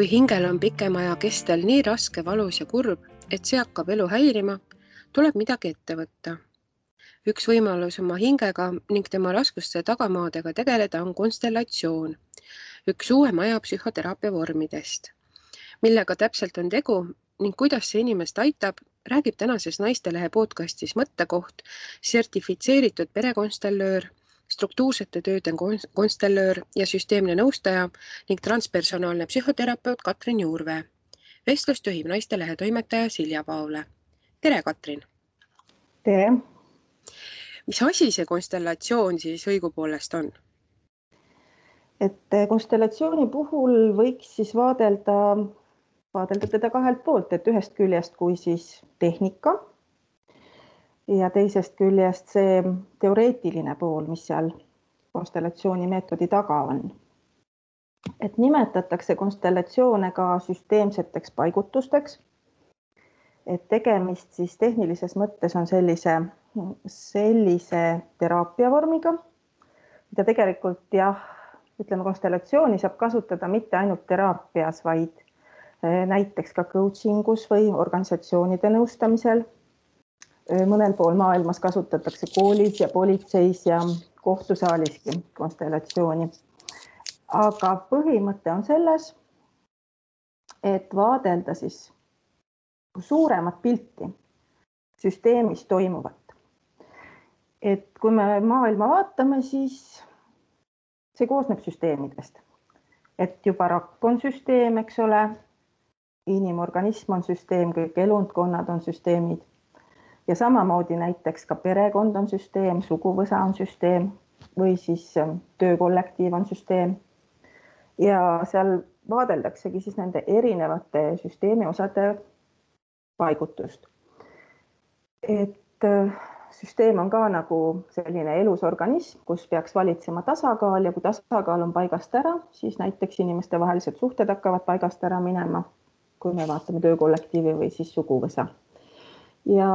Kui hingel on pikema aja kestel nii raske, valus ja kurb, et see hakkab elu häirima, tuleb midagi ette võtta. Üks võimalus oma hingega ning tema raskuste tagamaadega tegeleda on konstellatsioon, üks uuem aja psühhoteraapia vormidest. Millega täpselt on tegu ning kuidas see inimest aitab, räägib tänases Naistelehe podcastis Mõttekoht sertifitseeritud perekonstellöör, struktuursete tööde konstellöör ja süsteemne nõustaja ning transpersonaalne psühhoterapeut Katrin Juurvee. Vestlust juhib Naistelehe toimetaja Silja Paule. Tere, Katrin! Tere! Mis asi see konstellatsioon siis õigupoolest on? Et konstellatsiooni puhul võiks siis vaadelda teda kahelt poolt, et ühest küljest kui siis tehnika ja teisest küljest see teoreetiline pool, mis seal konstellatsiooni meetodi taga on. Et nimetatakse konstellatsioone ka süsteemseteks paigutusteks, et tegemist siis tehnilises mõttes on sellise teraapiavormiga, mida tegelikult konstellatsiooni saab kasutada mitte ainult teraapias, vaid näiteks ka coachingus või organisatsioonide nõustamisel. Mõnel pool maailmas kasutatakse koolis ja politseis ja kohtusaaliski konstellatsiooni. Aga põhimõte on selles, et vaadelda siis suuremat pilti süsteemis toimuvat. Et kui me maailma vaatame, siis see koosneb süsteemidest. Et juba rakk on süsteem, eks ole, inimorganism on süsteem, kõik elundkonnad on süsteemid. Ja samamoodi näiteks ka perekond on süsteem, suguvõsa on süsteem või siis töökollektiiv on süsteem. Ja seal vaadeldaksegi siis nende erinevate süsteemi osade paigutust. Et süsteem on ka nagu selline elus organism, kus peaks valitsema tasakaal ja kui tasakaal on paigast ära, siis näiteks inimeste vahelised suhted hakkavad paigast ära minema, kui me vaatame töökollektiivi või siis suguvõsa. Ja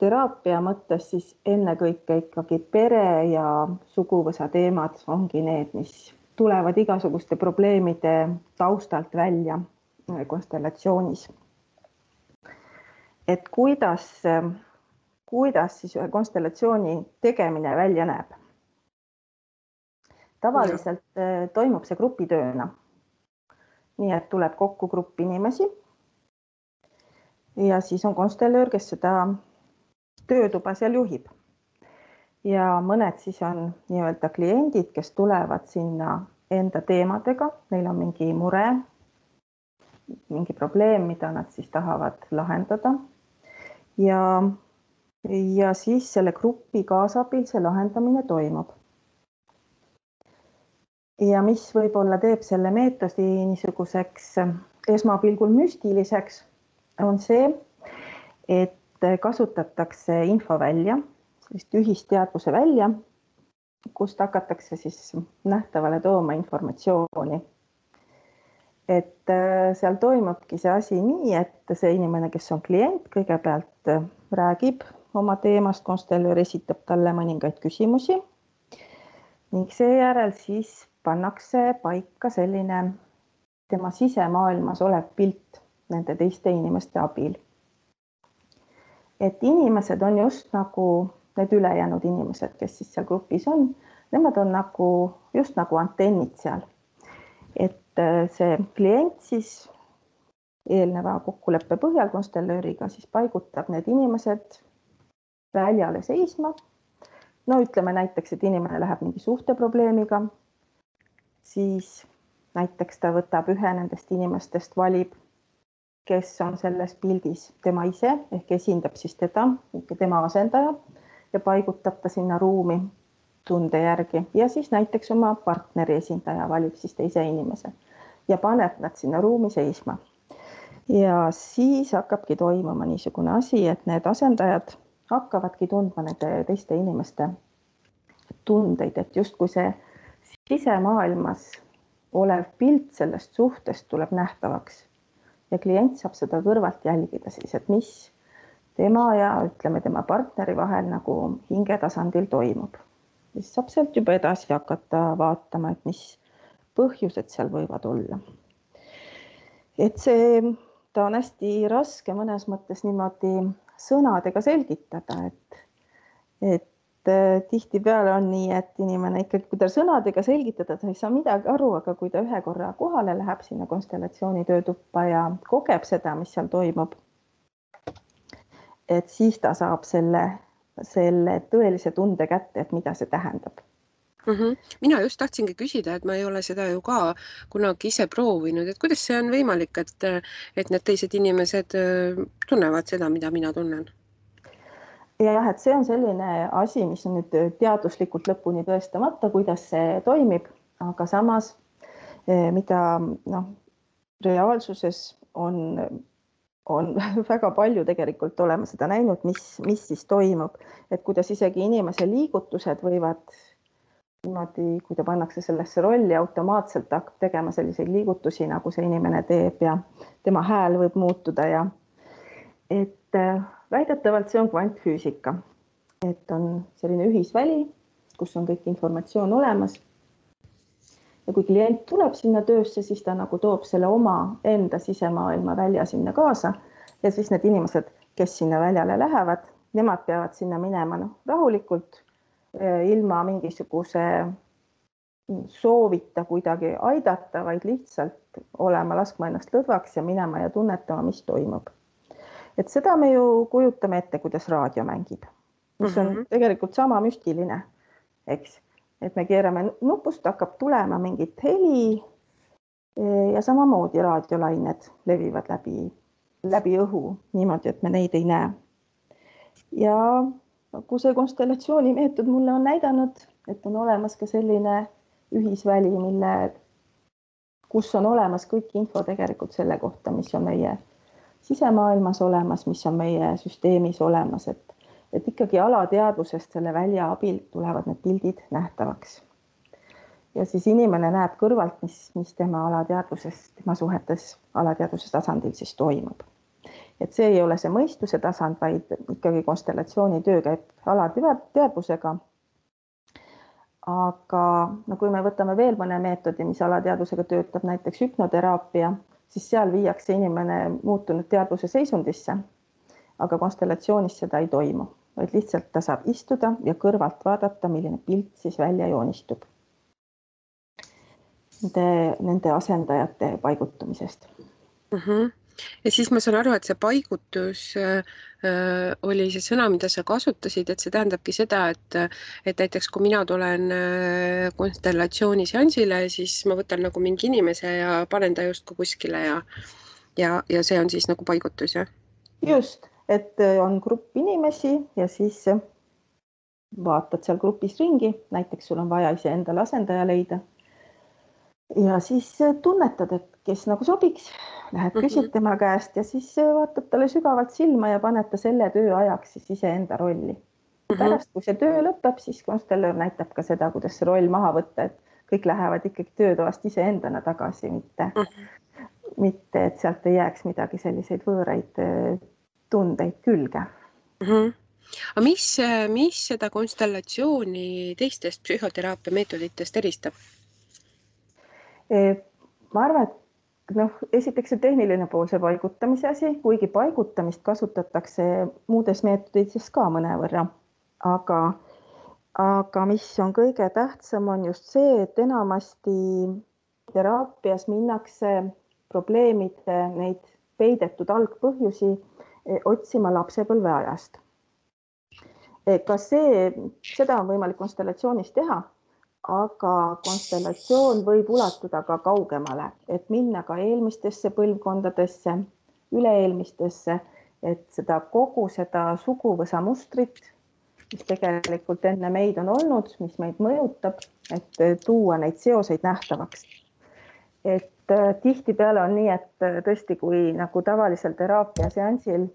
teraapia mõttes siis ennekõike ikkagi pere ja suguvõsa teemad ongi need, mis tulevad igasuguste probleemide taustalt välja konstellatsioonis. Et kuidas siis ühe konstellatsiooni tegemine välja näeb? Tavaliselt toimub see grupitööna. Nii et tuleb kokku grupp inimesi ja siis on konstellöör, kes seda töötuba seal juhib. Ja mõned siis on nii-öelda kliendid, kes tulevad sinna enda teemadega, neil on mingi mure, mingi probleem, mida nad siis tahavad lahendada. Ja siis selle grupi kaasabil see lahendamine toimub. Ja mis võib-olla teeb selle meetodi niisuguseks esmapilgul müstiliseks, on see, et kasutatakse info välja, sellist ühisteadvuse välja, kust hakatakse siis nähtavale tooma informatsiooni. Et seal toimubki see asi nii, et see inimene, kes on klient, kõigepealt räägib oma teemast, konstellöör esitab talle mõningaid küsimusi ning seejärel siis pannakse paika selline tema sisemaailmas olev pilt nende teiste inimeste abil. Et inimesed on just nagu need ülejäänud inimesed, kes siis seal grupis on, nemad on just nagu antennid seal. Et see klient siis eelneva kokkuleppe põhjal konstellööriga siis paigutab need inimesed väljale seisma. No ütleme näiteks, et inimene läheb mingi suhteprobleemiga, siis näiteks ta võtab ühe nendest inimestest, valib, kes on selles pildis tema ise, ehk esindab siis tema asendaja ja paigutab ta sinna ruumi tunde järgi. Ja siis näiteks oma partneri esindaja valib siis teise inimese ja paneb nad sinna ruumi seisma. Ja siis hakkabki toimuma niisugune asi, et need asendajad hakkavadki tundma nende teiste inimeste tundeid, et justkui see sisemaailmas olev pilt sellest suhtest tuleb nähtavaks. Ja klient saab seda kõrvalt jälgida siis, et mis tema ja ütleme tema partneri vahel nagu hingetasandil toimub. Siis saab sealt juba edasi hakata vaatama, et mis põhjused seal võivad olla. et ta on hästi raske mõnes mõttes niimoodi sõnadega selgitada, et tihtipeale on nii, et inimene ikkagi, kui ta sõnadega selgitada, ta ei saa midagi aru, aga kui ta ühe korra kohale läheb sinna konstellatsiooni töötuppa ja kogeb seda, mis seal toimub, et siis ta saab selle tõelise tunde kätte, et mida see tähendab. Mina just tahtsingi küsida, et ma ei ole seda ju ka kunagi ise proovinud, et kuidas see on võimalik, et need teised inimesed tunnevad seda, mida mina tunnen? Ja jah, et see on selline asi, mis on nüüd teaduslikult lõpuni tõestamata, kuidas see toimib, aga samas mida reaalsuses on väga palju tegelikult olema seda näinud, mis siis toimub, et kuidas isegi inimese liigutused võivad niimoodi, kui ta pannakse sellesse rolli, automaatselt hakkab tegema selliseid liigutusi, nagu see inimene teeb ja tema hääl võib muutuda ja et väidetavalt see on kvantfüüsika, et on selline ühisväli, kus on kõik informatsioon olemas. Ja kui klient tuleb sinna töösse, siis ta nagu toob selle oma enda sisemaailma välja sinna kaasa ja siis need inimesed, kes sinna väljale lähevad, nemad peavad sinna minema rahulikult, ilma mingisuguse soovita kuidagi aidata, vaid lihtsalt olema, laskma ennast lõdvaks ja minema ja tunnetama, mis toimub. Et seda me ju kujutame ette, kuidas raadio mängib, mis on tegelikult sama müstiline, eks. Et me keerame nupust, hakkab tulema mingit heli ja samamoodi raadiolained levivad läbi õhu niimoodi, et me neid ei näe. Ja kui see konstellatsiooni meetod mulle on näidanud, et on olemas ka selline ühisväli, kus on olemas kõik info tegelikult selle kohta, mis on meie sisemaailmas olemas, mis on meie süsteemis olemas, et ikkagi alateadvusest selle välja abil tulevad need pildid nähtavaks. Ja siis inimene näeb kõrvalt, mis tema alateadvusest, tema suhetes alateadvuse tasandil siis toimub. Et see ei ole see mõistuse tasand, vaid ikkagi konstellatsiooni töö käib alateadvusega. Aga kui me võtame veel mõne meetodi, mis alateadvusega töötab, näiteks hüpnoteraapia, siis seal viiakse inimene muutunud teadvuse seisundisse, aga konstellatsioonis seda ei toimu, vaid lihtsalt ta saab istuda ja kõrvalt vaadata, milline pilt siis välja joonistub nende asendajate paigutumisest. Ja siis ma saan aru, et see paigutus oli see sõna, mida sa kasutasid, et see tähendabki seda, et näiteks kui mina tulen konstellatsiooni seansile, siis ma võtan nagu mingi inimese ja panen ta justkui kuskile ja see on siis nagu paigutus, jah? Just, et on grupp inimesi ja siis vaatad seal grupis ringi, näiteks sul on vaja iseendale asendaja leida. Ja siis tunnetad, et kes nagu sobiks, lähed küsid tema käest ja siis vaatad talle sügavalt silma ja paned ta selle töö ajaks siis iseenda rolli. Pärast, kui see töö lõpeb, siis konstellöör näitab ka seda, kuidas see roll maha võtta, et kõik lähevad ikkagi töötoast iseendana tagasi, mitte et sealt ei jääks midagi selliseid võõraid tundeid külge. Aga mis seda konstellatsiooni teistest psühhoteraapia meetoditest eristab? Ma arvan, et esiteks see tehniline pool, see paigutamise asi, kuigi paigutamist kasutatakse muudes meetodites ka mõnevõrra. Aga mis on kõige tähtsam, on just see, et enamasti teraapias minnakse probleemide neid peidetud algpõhjusi otsima lapsepõlveajast. Seda on võimalik konstellatsioonis teha, aga konstellatsioon võib ulatuda ka kaugemale, et minna ka eelmistesse põlvkondadesse, üle-eelmistesse, et kogu seda suguvõsa mustrit, mis tegelikult enne meid on olnud, mis meid mõjutab, et tuua neid seoseid nähtavaks. Et tihtipeale on nii, et tõesti, kui nagu tavalisel teraapia seansil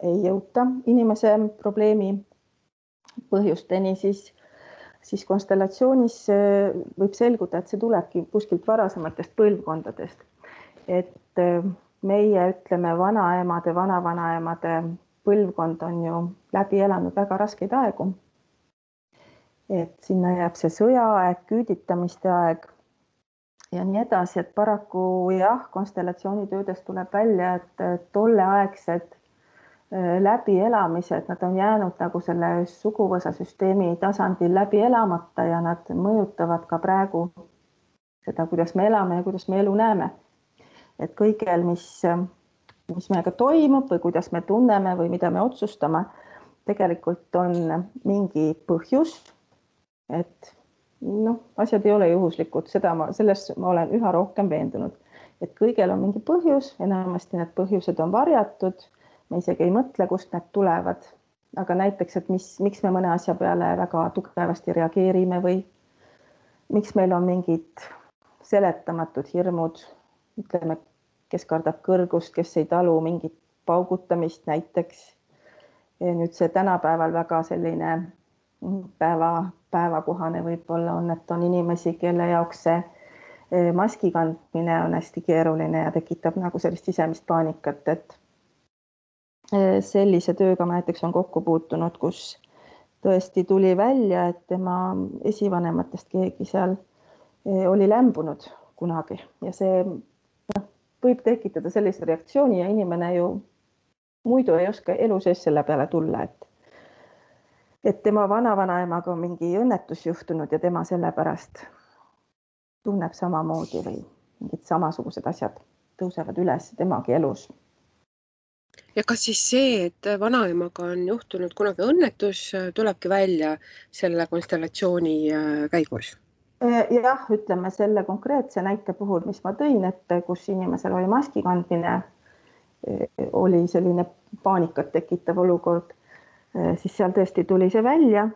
ei jõuta inimese probleemi põhjusteni, siis konstellatsioonis võib selguda, et see tulebki kuskilt varasematest põlvkondadest. Et meie, ütleme, vanaemade, vanavanaemade põlvkond on ju läbi elanud väga raskeid aegu. Et sinna jääb see sõjaaeg, küüditamiste aeg ja nii edasi, et paraku jah, konstellatsioonitöödest tuleb välja, et tolleaegsed läbielamised, nad on jäänud nagu selle suguvõsasüsteemi tasandil läbi elamata ja nad mõjutavad ka praegu seda, kuidas me elame ja kuidas me elu näeme. Et kõigel, mis meiega toimub või kuidas me tunneme või mida me otsustame, tegelikult on mingi põhjus, et asjad ei ole juhuslikud, selles ma olen üha rohkem veendunud, et kõigel on mingi põhjus, enamasti need põhjused on varjatud, me isegi ei mõtle, kust need tulevad, aga näiteks, et miks me mõne asja peale väga tugevasti reageerime või miks meil on mingid seletamatud hirmud, ütleme, kes kardab kõrgust, kes ei talu mingit paugutamist näiteks. Nüüd see tänapäeval väga selline päevakohane võib-olla on, et on inimesi, kelle jaoks see maski kandmine on hästi keeruline ja tekitab nagu sellist sisemist paanikat, et sellise tööga ma näiteks on kokku puutunud, kus tõesti tuli välja, et tema esivanematest keegi seal oli lämbunud kunagi ja see võib tekitada sellise reaktsiooni ja inimene ju muidu ei oska elu sees selle peale tulla, et tema vanavanaemaga on mingi õnnetus juhtunud ja tema sellepärast tunneb samamoodi või mingid samasugused asjad tõusevad üles temagi elus. Ja kas siis see, et vanaemaga on juhtunud kunagi õnnetus, tulebki välja selle konstellatsiooni käigus? Jah, ütleme selle konkreetse näite puhul, mis ma tõin, et kus inimesel oli maski kandmine, oli selline paanikat tekitav olukord, siis seal tõesti tuli see välja,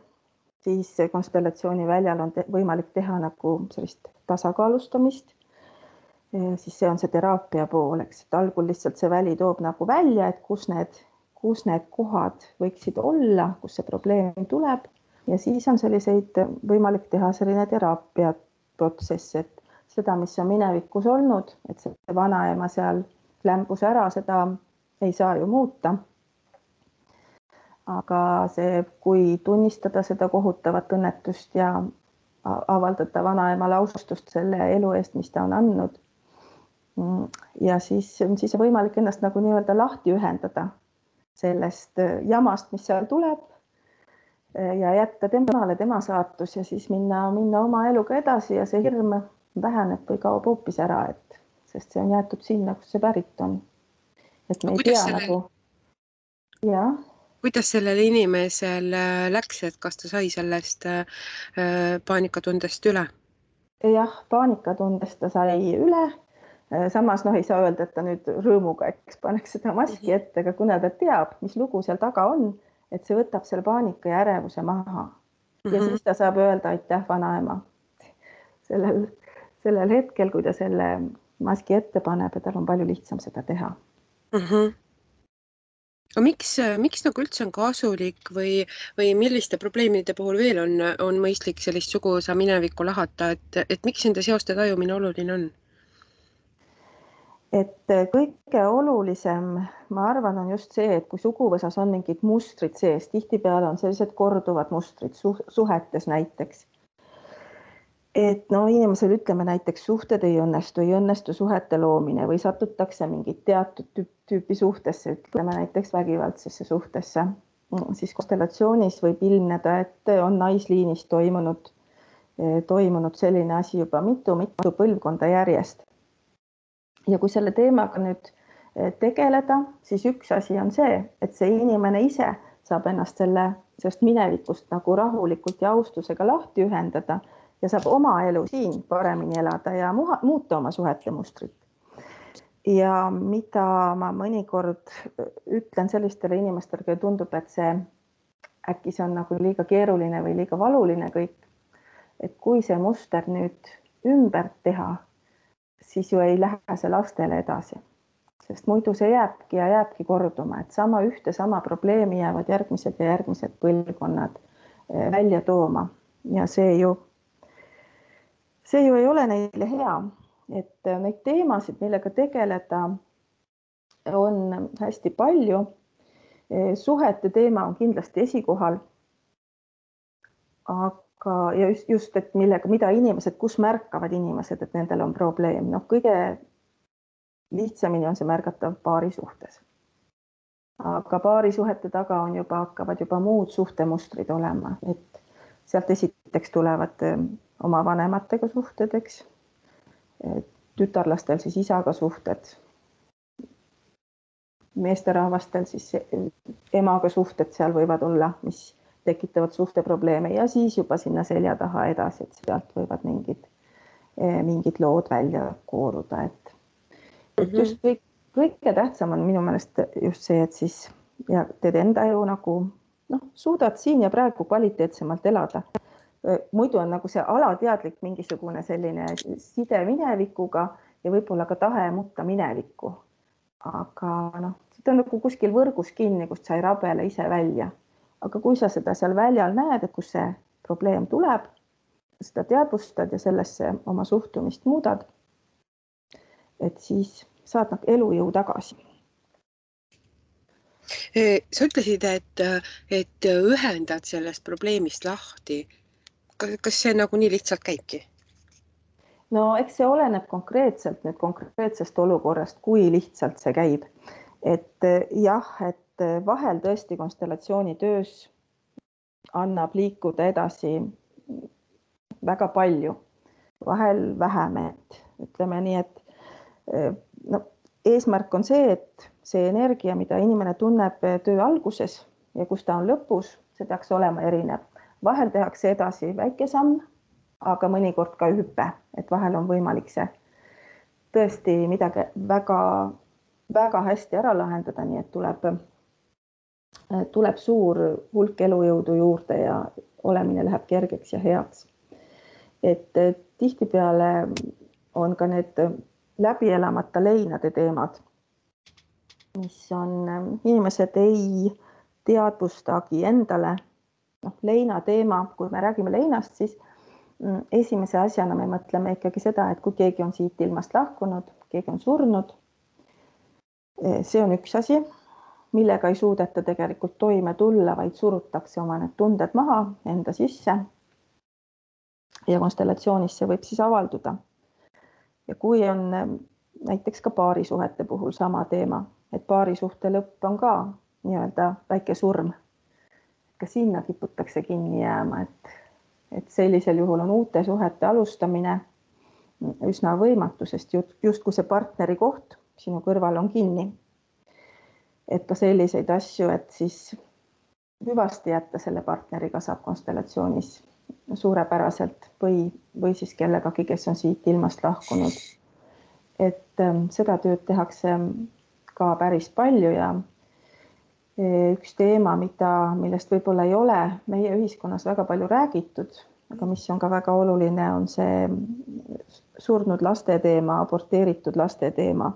siis konstellatsiooni väljal on võimalik teha nagu sellist tasakaalustamist, siis see on see teraapia pool, eks, et algul lihtsalt see väli toob nagu välja, et kus need kohad võiksid olla, kus see probleem tuleb ja siis on selliseid võimalik teha selline teraapia protsess, et seda, mis on minevikus olnud, et see vanaema seal lämbus ära, seda ei saa ju muuta. Aga see, kui tunnistada seda kohutavat õnnetust ja avaldada vanaemale austust selle elu eest, mis ta on andnud. Ja siis on võimalik ennast nagu nii-öelda lahti ühendada sellest jamast, mis seal tuleb ja jätta temale tema saatus ja siis minna oma eluga edasi ja see hirm väheneb või kaob hoopis ära, sest see on jäetud sinna, kus see pärit on. Et me ei tea nagu... Ja. Kuidas sellel inimesel läks, et kas ta sai sellest paanikatundest üle? Jah, paanikatundest ta sai üle. Samas ei saa öelda, et ta nüüd rõõmuga paneks seda maski ette, aga kuna ta teab, mis lugu seal taga on, et see võtab selle paanika ja ärevuse maha. Ja siis ta saab öelda aitäh vanaema sellel hetkel, kui ta selle maski ette paneb ja tal on palju lihtsam seda teha. Aga miks nagu üldse on kasulik või milliste probleemide puhul veel on mõistlik sellist suguvõsa minevikku lahata, et miks nende seoste tajumine oluline on? Et kõige olulisem, ma arvan, on just see, et kui suguvõsas on mingid mustrid sees, tihtipeale on sellised korduvad mustrid suhetes näiteks. Et inimesel ütleme näiteks suhted ei õnnestu suhete loomine või satutakse mingit teatud tüüpi suhtesse, ütleme näiteks vägivaldsesse suhtesse. Siis konstellatsioonis võib ilmneda, et on naisliinis toimunud selline asi juba mitu põlvkonda järjest. Ja kui selle teemaga nüüd tegeleda, siis üks asi on see, et see inimene ise saab ennast sellest minevikust nagu rahulikult ja austusega lahti ühendada ja saab oma elu siin paremini elada ja muuta oma suhete mustrit. Ja mida ma mõnikord ütlen sellistele inimestele, kui tundub, et äkki see on nagu liiga keeruline või liiga valuline kõik, et kui see muster nüüd ümber teha, siis ju ei lähe see lastele edasi, sest muidu see jääbki korduma, et sama probleemi jäävad järgmised ja järgmised põlvkonnad välja tooma ja see ju ei ole neile hea, et neid teemasid, millega tegeleda, on hästi palju. Suhete teema on kindlasti esikohal, ja just, et mida inimesed, kus märkavad inimesed, et nendel on probleem. Kõige lihtsamini on see märgatav paarisuhtes. Aga paarisuhete taga hakkavad juba muud suhtemustrid olema, et sealt esiteks tulevad oma vanematega suhted, eks. Tütarlastel siis isaga suhted, meesterahvastel siis emaga suhted seal võivad olla, mis tekitavad suhteprobleeme ja siis juba sinna selja taha edasi, et sealt võivad mingid lood välja kooruda. Et just kõige tähtsam on minu meelest just see, et siis ja teed enda elu nagu suudad siin ja praegu kvaliteetsemalt elada. Muidu on nagu see alateadlik mingisugune selline side minevikuga ja võib-olla ka tahe mutta minevikku. Aga see on nagu kuskil võrgus kinni, kust sa ei rabele ise välja. Aga kui sa seda seal väljal näed, et kus see probleem tuleb, seda teadvustad ja sellesse oma suhtumist muudad, et siis saad elujõu tagasi. Sa ütlesid, et ühendad sellest probleemist lahti. Kas see nagu nii lihtsalt käibki? No eks see oleneb konkreetsest olukorrast, kui lihtsalt see käib. Et jah, et vahel tõesti konstellatsiooni töös annab liikuda edasi väga palju, vahel vähem, et ütleme nii, et eesmärk on see, et see energia, mida inimene tunneb töö alguses ja kus ta on lõpus, see peaks olema erinev. Vahel tehakse edasi väike samm, aga mõnikord ka hüpe, et vahel on võimalik see tõesti midagi väga hästi ära lahendada, nii et tuleb suur hulk elujõudu juurde ja olemine läheb kergeks ja heaks. Et tihtipeale on ka need läbi elamata leinade teemad, mis on inimesed ei teadvustagi endale. Leina teema, kui me räägime leinast, siis esimese asjana me mõtleme ikkagi seda, et kui keegi on siit ilmast lahkunud, keegi on surnud, see on üks asi, millega ei suudeta tegelikult toime tulla, vaid surutakse oma need tunded maha enda sisse. Ja konstellatsioonis see võib siis avalduda. Ja kui on näiteks ka paarisuhete puhul sama teema, et paarisuhte lõpp on ka nii-öelda väike surm, ka sinna kiputakse kinni jääma, et sellisel juhul on uute suhete alustamine üsna võimatu, sest justkui see partneri koht sinu kõrval on kinni. Et ka selliseid asju, et siis hüvasti jätta selle partneriga saab konstellatsioonis suurepäraselt või siis kellegagi, kes on siit ilmast lahkunud. Et seda tööd tehakse ka päris palju ja üks teema, millest võib-olla ei ole meie ühiskonnas väga palju räägitud, aga mis on ka väga oluline, on see surnud laste teema, aborteeritud laste teema.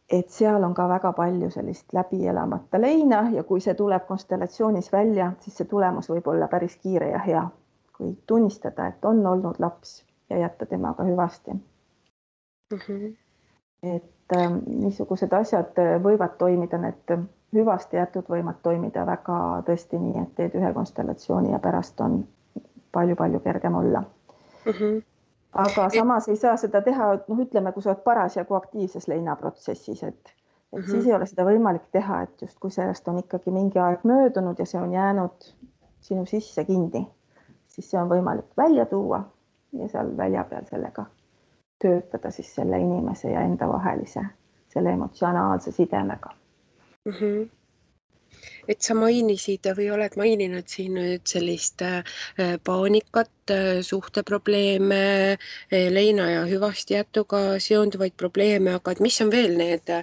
Et seal on ka väga palju sellist läbi elamata leina ja kui see tuleb konstellatsioonis välja, siis see tulemus võib olla päris kiire ja hea, kui tunnistada, et on olnud laps ja jätta temaga hüvasti. Et niisugused asjad võivad toimida, need hüvasti jätud võivad toimida väga tõesti nii, et teed ühe konstellatsiooni ja pärast on palju-palju kergem olla. Aga samas ei saa seda teha, ütleme, kui sa oled parasjagu aktiivses leinaprotsessis, et siis ei ole seda võimalik teha, et just kui sellest on ikkagi mingi aeg möödunud ja see on jäänud sinu sisse kinni, siis see on võimalik välja tuua ja seal välja peal sellega töötada siis selle inimese ja enda vahelise, selle emotsionaalse sidemega. Et sa mainisid või oled maininud siin nüüd sellist paanikat, suhteprobleeme, leina ja hüvasti jätuga seonduvaid probleeme, aga et mis on veel need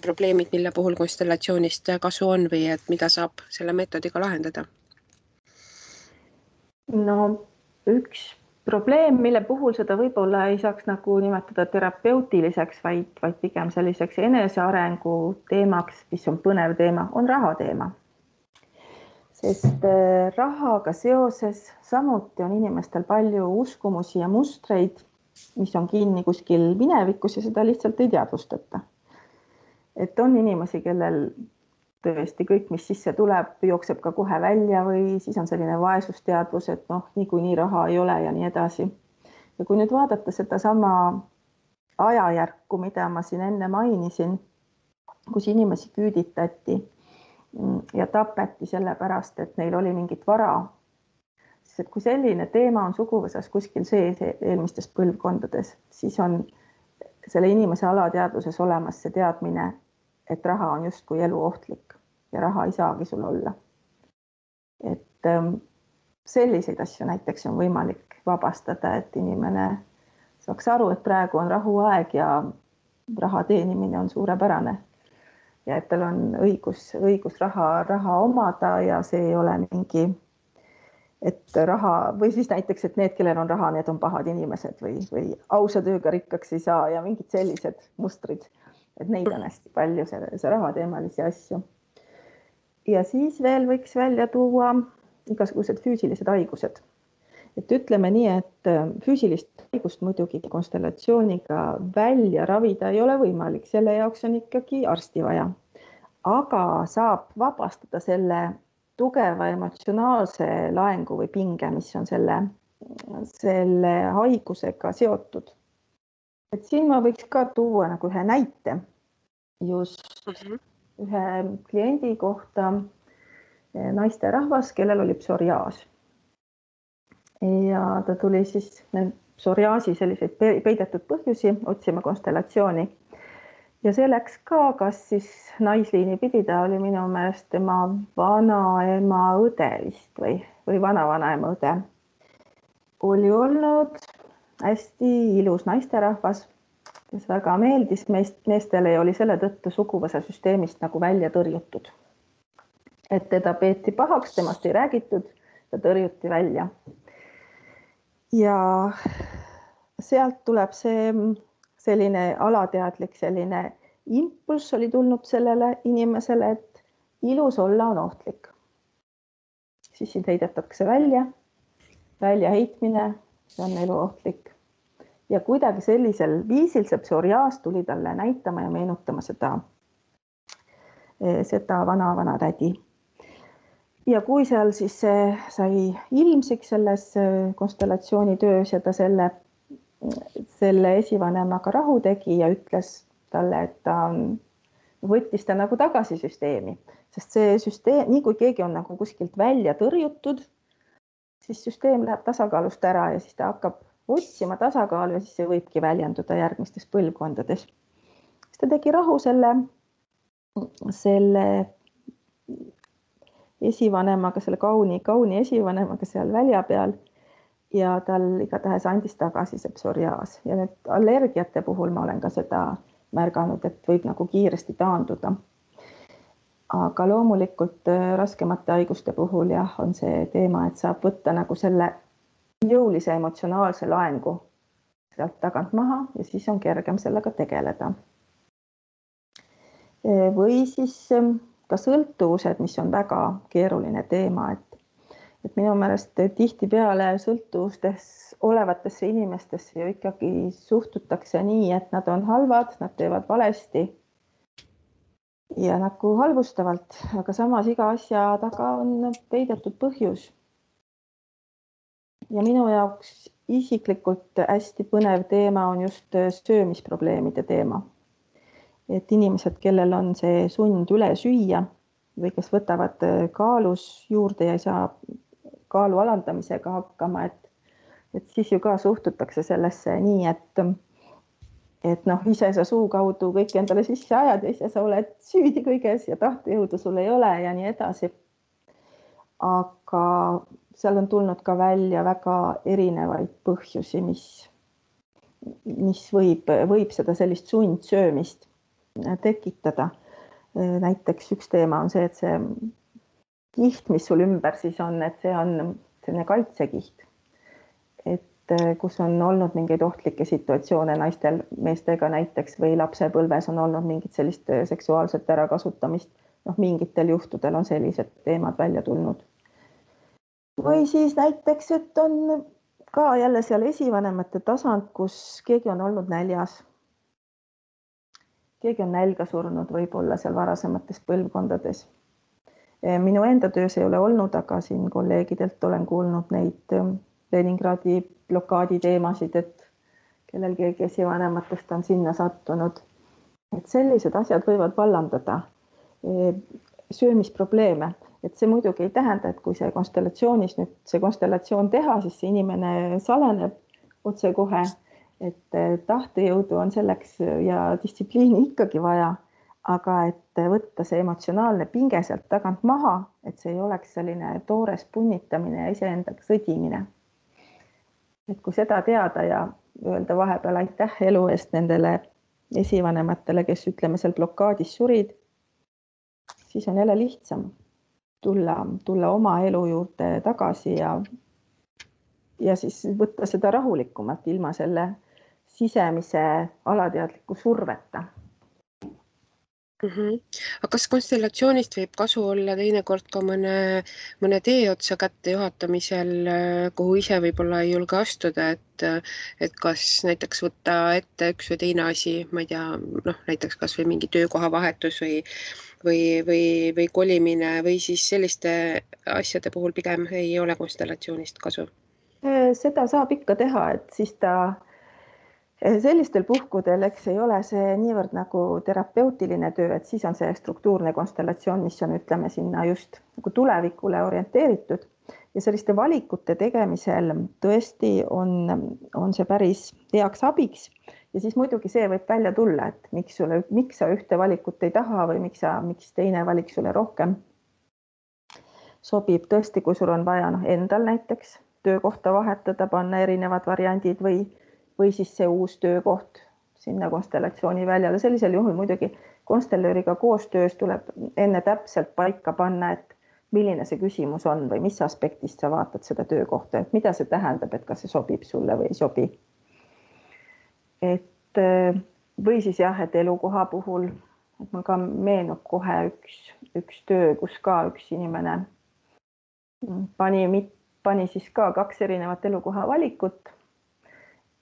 probleemid, mille puhul konstellatsioonist kasu on või et mida saab selle meetodiga lahendada? No üks probleem, mille puhul seda võib-olla ei saaks nagu nimetada terapeutiliseks, vaid pigem selliseks enesearengu teemaks, mis on põnev teema, on raha teema. Sest rahaga seoses samuti on inimestel palju uskumusi ja mustreid, mis on kinni kuskil minevikus ja seda lihtsalt ei teadvustata. Et on inimesi, kellel tõesti kõik, mis sisse tuleb, jookseb ka kohe välja või siis on selline vaesusteadvus, et noh, niikuinii raha ei ole ja nii edasi. Ja kui nüüd vaadata sedasama ajajärku, mida ma siin enne mainisin, kus inimesi küüditati ja tapeti sellepärast, et neil oli mingit vara, siis et kui selline teema on suguvõsas kuskil sees eelmistes põlvkondades, siis on selle inimese alateadvuses olemas see teadmine, et raha on justkui eluohtlik ja raha ei saagi sul olla. Et selliseid asju näiteks on võimalik vabastada, et inimene saaks aru, et praegu on rahuaeg ja raha teenimine on suurepärane ja et tal on õigus raha omada ja see ei ole mingi, et raha või siis näiteks, et need, kellel on raha, need on pahad inimesed või ausa tööga rikkaks ei saa ja mingid sellised mustrid, et neid on hästi palju, see rahateemalisi asju. Ja siis veel võiks välja tuua igasugused füüsilised haigused. Et ütleme nii, et füüsilist haigust muidugi konstellatsiooniga välja ravida ei ole võimalik, selle jaoks on ikkagi arsti vaja. Aga saab vabastada selle tugeva emotsionaalse laengu või pinge, mis on selle haigusega seotud. Et siin ma võiks ka tuua nagu ühe näite just ühe kliendi kohta, naisterahvas, kellel oli psoriaas. Ja ta tuli siis psoriaasi selliseid peidetud põhjusi otsima konstellatsiooni. Ja see läks ka, kas siis naisliini pidi, ta oli minu meelest tema vanaema õde vist või vana-vanaema õde. Oli olnud hästi ilus naisterahvas, kes väga meeldis meestele ja oli selle tõttu suguvõsa süsteemist nagu välja tõrjutud. Et teda peeti pahaks, temast ei räägitud, ta tõrjuti välja. Ja sealt tuleb see selline alateadlik selline impulss oli tulnud sellele inimesele, et ilus olla on ohtlik. Siis sind heidetakse välja heitmine, see on eluohtlik. Ja kuidagi sellisel viisil see psoriaas tuli talle näitama ja meenutama seda vana tädi. Ja kui seal siis sai ilmsiks selles konstellatsioonitöös ja ta selle esivanemaga rahu tegi ja ütles talle, et ta võttis ta nagu tagasi süsteemi, sest see süsteem, nii kui keegi on nagu kuskilt välja tõrjutud, siis süsteem läheb tasakaalust ära ja siis ta hakkab otsima tasakaalu ja siis see võibki väljenduda järgmistes põlvkondades. Siis ta tegi rahu selle esivanemaga, selle kauni esivanemaga seal välja peal ja tal igatahes andis tagasi see psoriaas. Ja nüüd allergiate puhul ma olen ka seda märganud, et võib nagu kiiresti taanduda. Aga loomulikult raskemate haiguste puhul jah, on see teema, et saab võtta nagu selle jõulise emotsionaalse laengu sealt tagant maha ja siis on kergem sellega tegeleda. Või siis ka sõltuvused, mis on väga keeruline teema, et minu meelest tihtipeale sõltuvustes olevatesse inimestesse ju ikkagi suhtutakse nii, et nad on halvad, nad teevad valesti ja nagu halvustavalt, aga samas iga asja taga on peidetud põhjus. Ja minu jaoks isiklikult hästi põnev teema on just söömisprobleemide teema. Et inimesed, kellel on see sund üle süüa või kes võtavad kaalus juurde ja ei saa kaalu alandamisega hakkama, et siis ju ka suhtutakse sellesse nii, et noh, ise sa suu kaudu kõik endale sisse ajad ja ise sa oled süüdi kõiges ja tahtejõudu sul ei ole ja nii edasi. Aga seal on tulnud ka välja väga erinevaid põhjusi, mis võib seda sellist sundsöömist tekitada. Näiteks üks teema on see, et see kiht, mis sul ümber siis on, et see on selline kaitsekiht, et kus on olnud mingeid ohtlikke situatsioone naistel, meestega näiteks või lapsepõlves on olnud mingit sellist seksuaalset ärakasutamist. Noh, mingitel juhtudel on sellised teemad välja tulnud. Või siis näiteks, et on ka jälle seal esivanemate tasand, kus keegi on olnud näljas. keegi on nälga surnud võib-olla seal varasemates põlvkondades. Minu enda töös ei ole olnud, aga siin kolleegidelt olen kuulnud neid Leningradi blokaadi teemasid, et kellel keegi esivanematest on sinna sattunud. Et sellised asjad võivad vallandada söömisprobleeme. Et see muidugi ei tähenda, et kui see konstellatsioonis nüüd see konstellatsioon teha, siis see inimene saleneb otse kohe, et tahtejõudu on selleks ja distsipliini ikkagi vaja, aga et võtta see emotsionaalne pinge sealt tagant maha, et see ei oleks selline toores punnitamine ja iseendaga sõdimine. Et kui seda teada ja öelda vahepeal aitäh elu eest nendele esivanematele, kes ütleme seal blokaadis surid, siis on jälle lihtsam tulla oma elu juurde tagasi ja siis võtta seda rahulikumalt ilma selle sisemise alateadliku surveta. Aga kas konstellatsioonist võib kasu olla teinekord ka mõne tee otsa kätte juhatamisel, kuhu ise võib-olla ei julge astuda, et kas näiteks võtta ette üks või teine asi, ma ei tea, näiteks kas või mingi töökoha vahetus või kolimine või siis selliste asjade puhul pigem ei ole konstellatsioonist kasu? Seda saab ikka teha, et siis sellistel puhkudel, eks ei ole see niivõrd nagu terapeutiline töö, et siis on see struktuurne konstellatsioon, mis on, ütleme, sinna just nagu tulevikule orienteeritud ja selliste valikute tegemisel tõesti on see päris heaks abiks ja siis muidugi see võib välja tulla, et miks sa ühte valikut ei taha või miks teine valik sulle rohkem sobib. Tõesti, kui sul on vaja endal näiteks töökohta vahetada, panna erinevad variandid või siis see uus töökoht sinna konstellatsiooni väljale. Sellisel juhul muidugi konstellööriga koostöös tuleb enne täpselt paika panna, et milline see küsimus on või mis aspektist sa vaatad seda töökohta, et mida see tähendab, et kas see sobib sulle või ei sobi. Või siis jah, et elukoha puhul, et mul ka meenub kohe üks töö, kus ka üks inimene pani siis ka 2 erinevat elukoha valikut,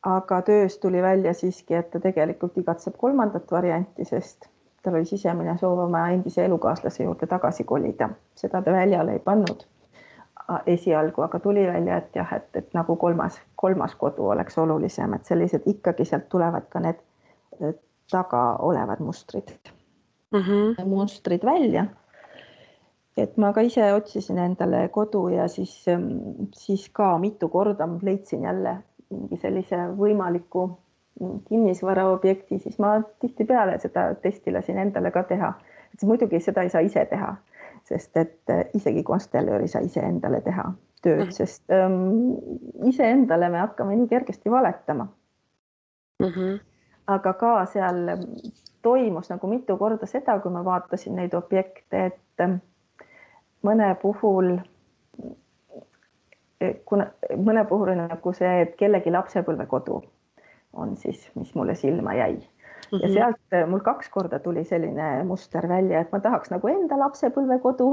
aga töös tuli välja siiski, et ta tegelikult igatseb 3. varianti, sest tal oli sisemine soov oma endise elukaaslase juurde tagasi kolida. Seda ta väljale ei pannud esialgu, aga tuli välja, et jah, et nagu kolmas kodu oleks olulisem, et sellised ikkagi sealt tulevad ka need taga olevad mustrid välja. Et ma ka ise otsisin endale kodu ja siis ka mitu korda leidsin jälle mingi sellise võimaliku kinnisvaraobjekti, siis ma tihtipeale seda testi lasin endale ka teha. Et muidugi seda ei saa ise teha, sest et isegi konstellöör ei saa ise endale teha tööd, sest ise endale me hakkame nii kergesti valetama. Aga ka seal toimus nagu mitu korda seda, kui ma vaatasin neid objekte, et mõne puhul on nagu see, et kellegi lapsepõlvekodu on siis, mis mulle silma jäi. Ja sealt mul 2 korda tuli selline muster välja, et ma tahaks nagu enda lapsepõlvekodu,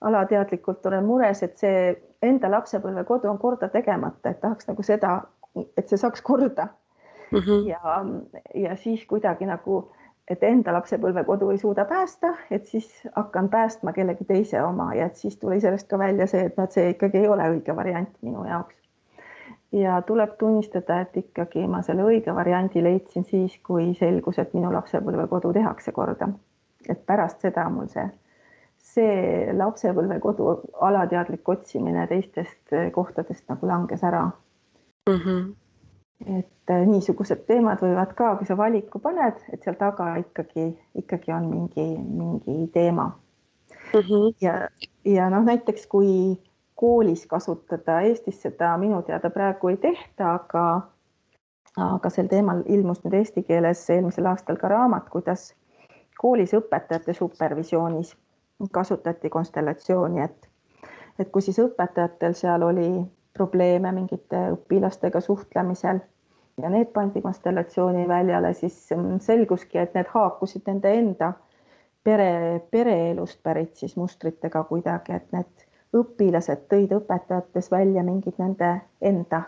alateadlikult olen mures, et see enda lapsepõlvekodu on korda tegemata, et tahaks nagu seda, et see saaks korda. Ja siis kuidagi nagu, et enda lapsepõlvekodu ei suuda päästa, et siis hakkan päästma kellegi teise oma ja et siis tuli sellest ka välja see, et see ikkagi ei ole õige variant minu jaoks. Ja tuleb tunnistada, et ikkagi ma selle õige variandi leidsin siis, kui selgus, et minu lapsepõlvekodu tehakse korda. Et pärast seda mul see lapsepõlvekodu alateadlik otsimine teistest kohtadest nagu langes ära. Et niisugused teemad võivad ka, kui sa valiku paned, et seal taga ikkagi on mingi teema. Ja näiteks kui koolis kasutada, Eestis seda minu teada praegu ei tehta, aga sel teemal ilmus nüüd eesti keeles eelmisel aastal ka raamat, kuidas koolis õpetajate supervisioonis kasutati konstellatsiooni, et kui siis õpetajatel seal oli probleeme mingite õpilastega suhtlemisel ja need pandi konstellatsiooni väljale, siis selguski, et need haakusid nende enda pereelust pärit siis mustritega kuidagi, et need õpilased tõid õpetajates välja mingid nende enda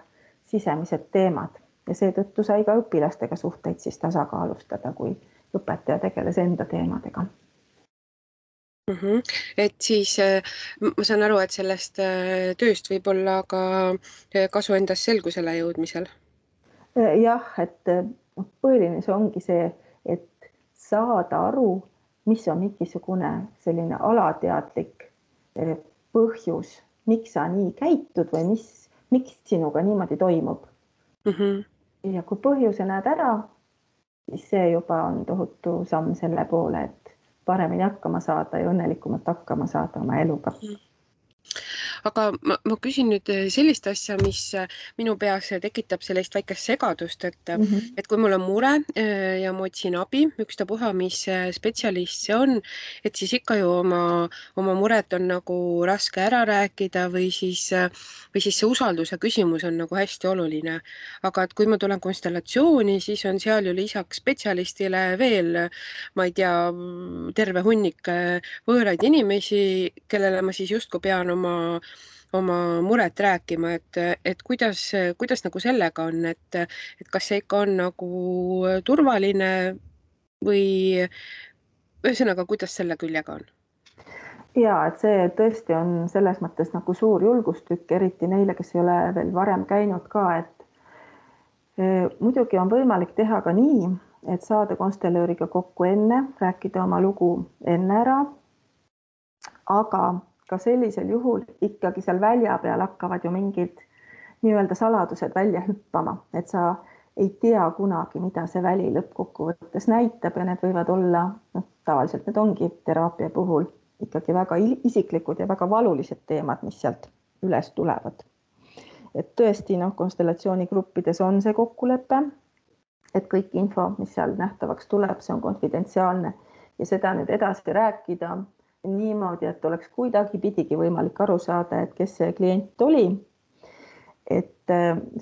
sisemised teemad ja seetõttu sai ka õpilastega suhteid siis tasakaalustada, kui õpetaja tegeles enda teemadega. Et siis ma saan aru, et sellest tööst võib olla ka kasu endas selgusele jõudmisel. Jah, et põhiline see ongi see, et saada aru, mis on mingisugune selline alateadlik põhjus, miks sa nii käitud või miks sinuga niimoodi toimub. Ja kui põhjuse näed ära, siis see juba on tohutu samm selle poole, et paremini hakkama saada ja õnnelikumalt hakkama saada oma eluga. Aga ma küsin nüüd sellist asja, mis minu peas tekitab sellist väikest segadust, et kui mul on mure ja ma otsin abi, ükstapuha, mis spetsialist see on, et siis ikka ju oma muret on nagu raske ära rääkida või siis see usalduse küsimus on nagu hästi oluline. Aga et kui ma tulen konstellatsiooni, siis on seal ju lisaks spetsialistile veel, ma ei tea, terve hunnik võõraid inimesi, kellele ma siis justkui pean oma muret rääkima, et kuidas nagu sellega on, et kas see ikka on nagu turvaline või ühesõnaga, kuidas selle küljega on? Ja, et see tõesti on selles mõttes nagu suur julgustükk, eriti neile, kes ei ole veel varem käinud ka, et muidugi on võimalik teha ka nii, et saada konstellööriga kokku enne, rääkida oma lugu enne ära, aga ka sellisel juhul ikkagi seal välja peal hakkavad ju mingid nii-öelda saladused välja hüppama, et sa ei tea kunagi, mida see väli lõppkokkuvõttes näitab ja need võivad olla, tavaliselt need ongi teraapia puhul ikkagi väga isiklikud ja väga valulised teemad, mis sealt üles tulevad. Et tõesti, konstellatsioonigruppides on see kokkulepe, et kõik info, mis seal nähtavaks tuleb, see on konfidentsiaalne ja seda nüüd edasi rääkida niimoodi, et oleks kuidagi pidigi võimalik aru saada, et kes see klient oli. Et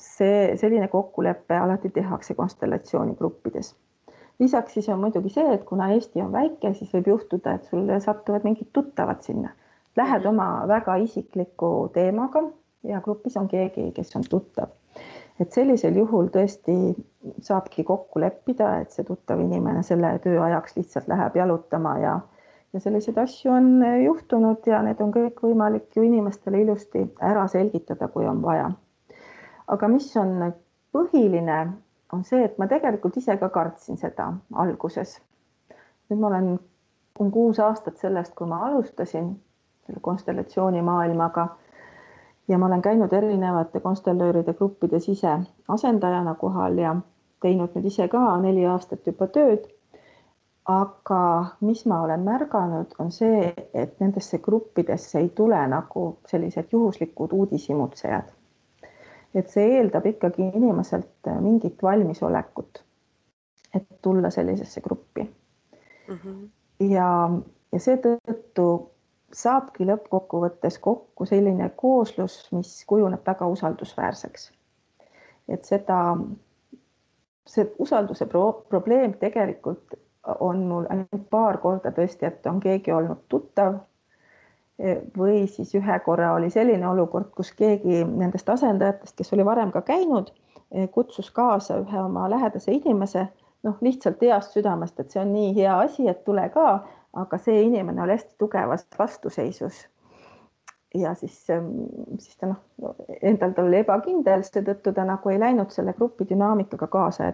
selline kokkulepe alati tehakse konstellatsioonigruppides. Lisaks siis on muidugi see, et kuna Eesti on väike, siis võib juhtuda, et sul satuvad mingid tuttavad sinna. Lähed oma väga isikliku teemaga ja grupis on keegi, kes on tuttav. Et sellisel juhul tõesti saabki kokku leppida, et see tuttav inimene selle töö ajaks lihtsalt läheb jalutama ja selliseid asju on juhtunud ja need on kõik võimalik ju inimestele ilusti ära selgitada, kui on vaja. Aga mis on põhiline, on see, et ma tegelikult ise ka kartsin seda alguses. Nüüd ma olen 6 aastat sellest, kui ma alustasin selle konstellatsiooni maailmaga ja ma olen käinud erinevate konstellööride gruppides ise asendajana kohal ja teinud nüüd ise ka 4 aastat juba tööd. Aga mis ma olen märganud, on see, et nendesse gruppidesse ei tule nagu sellised juhuslikud uudishimutsejad. Et see eeldab ikkagi inimeselt mingit valmisolekut, et tulla sellisesse gruppi. Ja seetõttu saabki lõppkokkuvõttes kokku selline kooslus, mis kujuneb väga usaldusväärseks. Et see usalduse probleem tegelikult on mul ainult paar korda tõesti, et on keegi olnud tuttav või siis ühe korra oli selline olukord, kus keegi nendest asendajatest, kes oli varem ka käinud, kutsus kaasa ühe oma lähedase inimese, lihtsalt heast südamest, et see on nii hea asi, et tule ka, aga see inimene oli hästi tugevas vastuseisus. Ja siis ta endal ta oli ebakindel, seetõttu ta nagu ei läinud selle grupi dünaamikaga kaasa,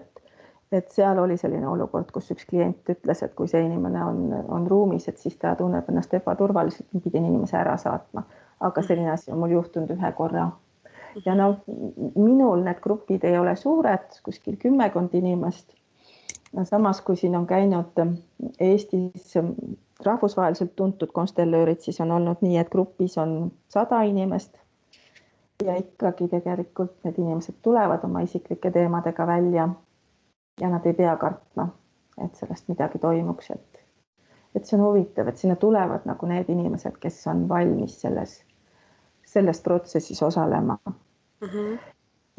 et seal oli selline olukord, kus üks klient ütles, et kui see inimene on ruumis, et siis ta tunneb ennast ebaturvaliselt, pidin inimese ära saatma. Aga selline asi on mul juhtunud ühe korra. Ja minul need grupid ei ole suured, kuskil 10 inimest. Samas, kui siin on käinud Eestis rahvusvaheliselt tuntud konstellöörid, siis on olnud nii, et grupis on 100 inimest. Ja ikkagi tegelikult need inimesed tulevad oma isiklike teemadega välja. Ja nad ei pea kartma, et sellest midagi toimuks. Et see on huvitav, et sinna tulevad nagu need inimesed, kes on valmis selles protsessis osalema.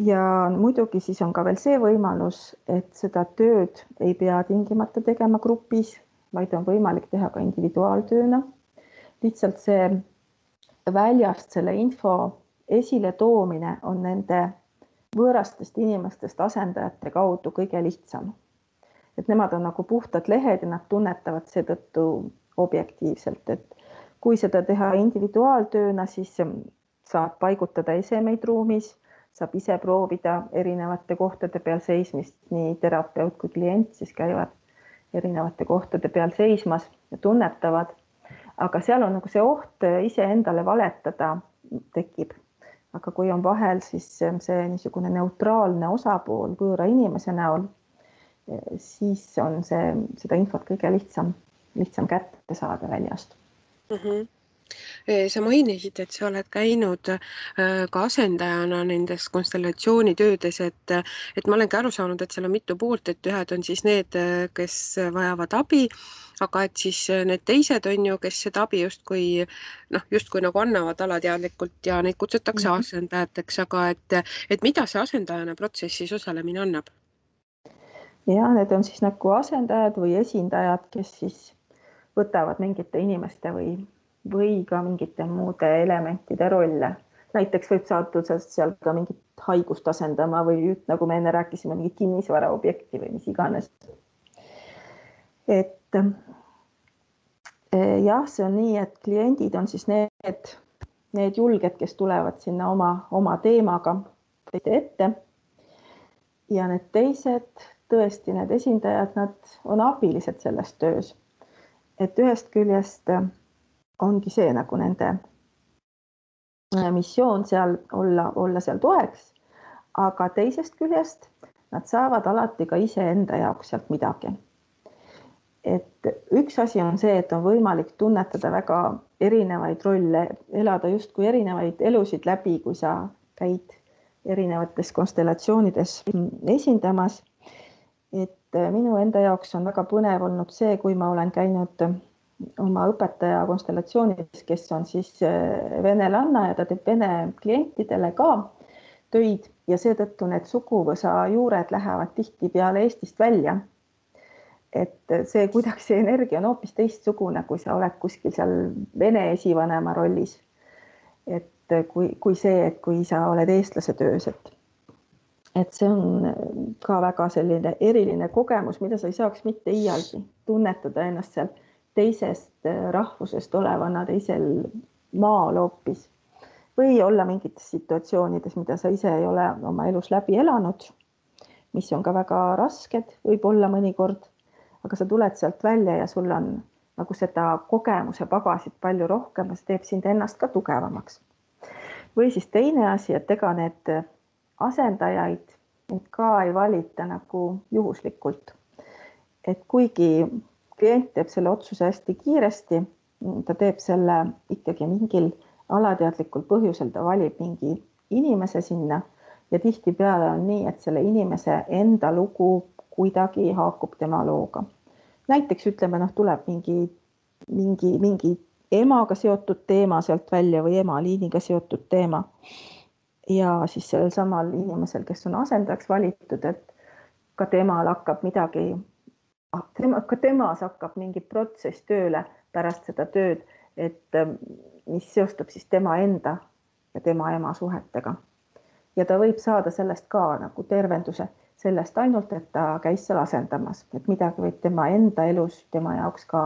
Ja muidugi siis on ka veel see võimalus, et seda tööd ei pea tingimata tegema grupis, vaid on võimalik teha ka individuaaltööna. Lihtsalt see väljast selle info esile toomine on nende võõrastest inimestest asendajate kaudu kõige lihtsam. et nemad on nagu puhtad lehed ja nad tunnetavad seetõttu objektiivselt, et kui seda teha individuaaltööna, siis saab paigutada esemeid ruumis, saab ise proovida erinevate kohtade peal seismist, nii terapeut kui klient siis käivad erinevate kohtade peal seismas ja tunnetavad, aga seal on nagu see oht iseendale valetada tekib. Aga kui on vahel siis see niisugune neutraalne osapool võõra inimese näol, siis on seda infot kõige lihtsam kätte saada väljast. Sa mainisid, et sa oled käinud ka asendajana nendes konstellatsioonitöödes, et ma olengi aru saanud, et seal on mitu poolt, et ühed on siis need, kes vajavad abi, aga et siis need teised on ju, kes seda abi justkui nagu annavad alateadlikult ja neid kutsutakse asendajateks, aga et mida see asendajana protsessis osalemine annab? Ja need on siis nagu asendajad või esindajad, kes siis võtavad mingite inimeste või ka mingite muude elementide rolle. Näiteks võib saada seal ka mingit haigust asendama või nagu me enne rääkisime, mingit kinnisvara objekti või mis iganes. Et jah, see on nii, et kliendid on siis need julged, kes tulevad sinna oma teemaga ette. Ja need teised, tõesti need esindajad, nad on abilised selles töös. Et ühest küljest ongi see nagu nende missioon seal olla seal toeks, aga teisest küljest nad saavad alati ka iseenda jaoks sealt midagi. Et üks asi on see, et on võimalik tunnetada väga erinevaid rolle, elada justkui erinevaid elusid läbi, kui sa käid erinevates konstellatsioonides esindamas. Et minu enda jaoks on väga põnev olnud see, kui ma olen käinud oma õpetaja konstellatsioonis, kes on siis venelanna ja ta teeb vene klientidele ka töid ja seetõttu need suguvõsa juured lähevad tihtipeale Eestist välja. Et see kuidagi see energia on hoopis teistsugune, kui sa oled kuskil seal vene esivanema rollis. Et kui see, et kui sa oled eestlase töös, et see on ka väga selline eriline kogemus, mida sa ei saaks mitte iialgi tunnetada ennast seal teisest rahvusest olevana teisel maal hoopis või olla mingites situatsioonides, mida sa ise ei ole oma elus läbi elanud, mis on ka väga rasked, võib olla mõnikord, aga sa tuled sealt välja ja sul on nagu seda kogemuse pagasit palju rohkem ja see teeb sind ennast ka tugevamaks. Või siis teine asi, et ega need asendajaid ka ei valita nagu juhuslikult. Et kuigi klient teeb selle otsuse hästi kiiresti, ta teeb selle ikkagi mingil alateadlikul põhjusel, ta valib mingi inimese sinna ja tihtipeale on nii, et selle inimese enda lugu kuidagi haakub tema looga. Näiteks ütleme, tuleb mingi emaga seotud teema sealt välja või emaliiniga seotud teema. Ja siis sellel samal inimesel, kes on asendajaks valitud, et ka temal hakkab midagi, ka temas hakkab mingi protsess tööle pärast seda tööd, et mis seostub siis tema enda ja tema ema suhetega. Ja ta võib saada sellest ka nagu tervenduse sellest ainult, et ta käis seal asendamas, et midagi võib tema enda elus tema jaoks ka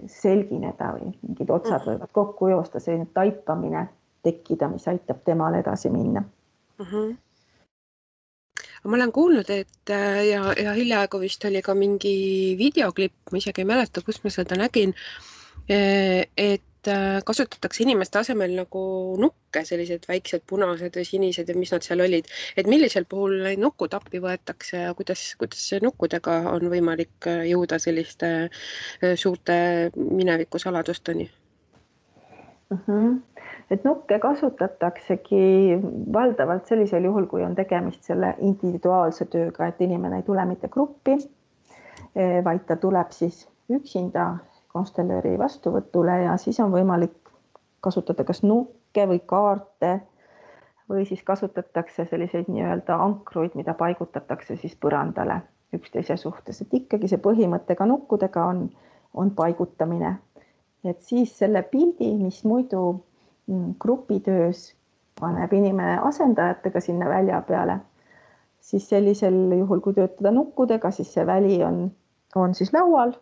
selgineda või mingid otsad võivad kokku joosta, selline taipamine tekkida, mis aitab temal edasi minna. Ma olen kuulnud, et ja hiljaaegu vist oli ka mingi videoklipp, ma isegi ei mäleta, kus ma seda nägin, et kasutatakse inimeste asemel nagu nukke, sellised väiksed punased või sinised ja mis nad seal olid. Et millisel puhul neid nukud appi võetakse ja kuidas nukkudega on võimalik jõuda selliste suurte mineviku saladusteni? Et nukke kasutataksegi valdavalt sellisel juhul, kui on tegemist selle individuaalse tööga, et inimene ei tule mitte gruppi, vaid ta tuleb siis üksinda konstellööri vastuvõtule ja siis on võimalik kasutada kas nukke või kaarte või siis kasutatakse selliseid nii-öelda ankruid, mida paigutatakse siis põrandale üksteise suhtes. Et ikkagi see põhimõte ka nukkudega on paigutamine. Et siis selle pildi, mis muidu grupitöös paneb inimene asendajatega sinna välja peale, siis sellisel juhul, kui töötada nukkudega, siis see väli on siis laual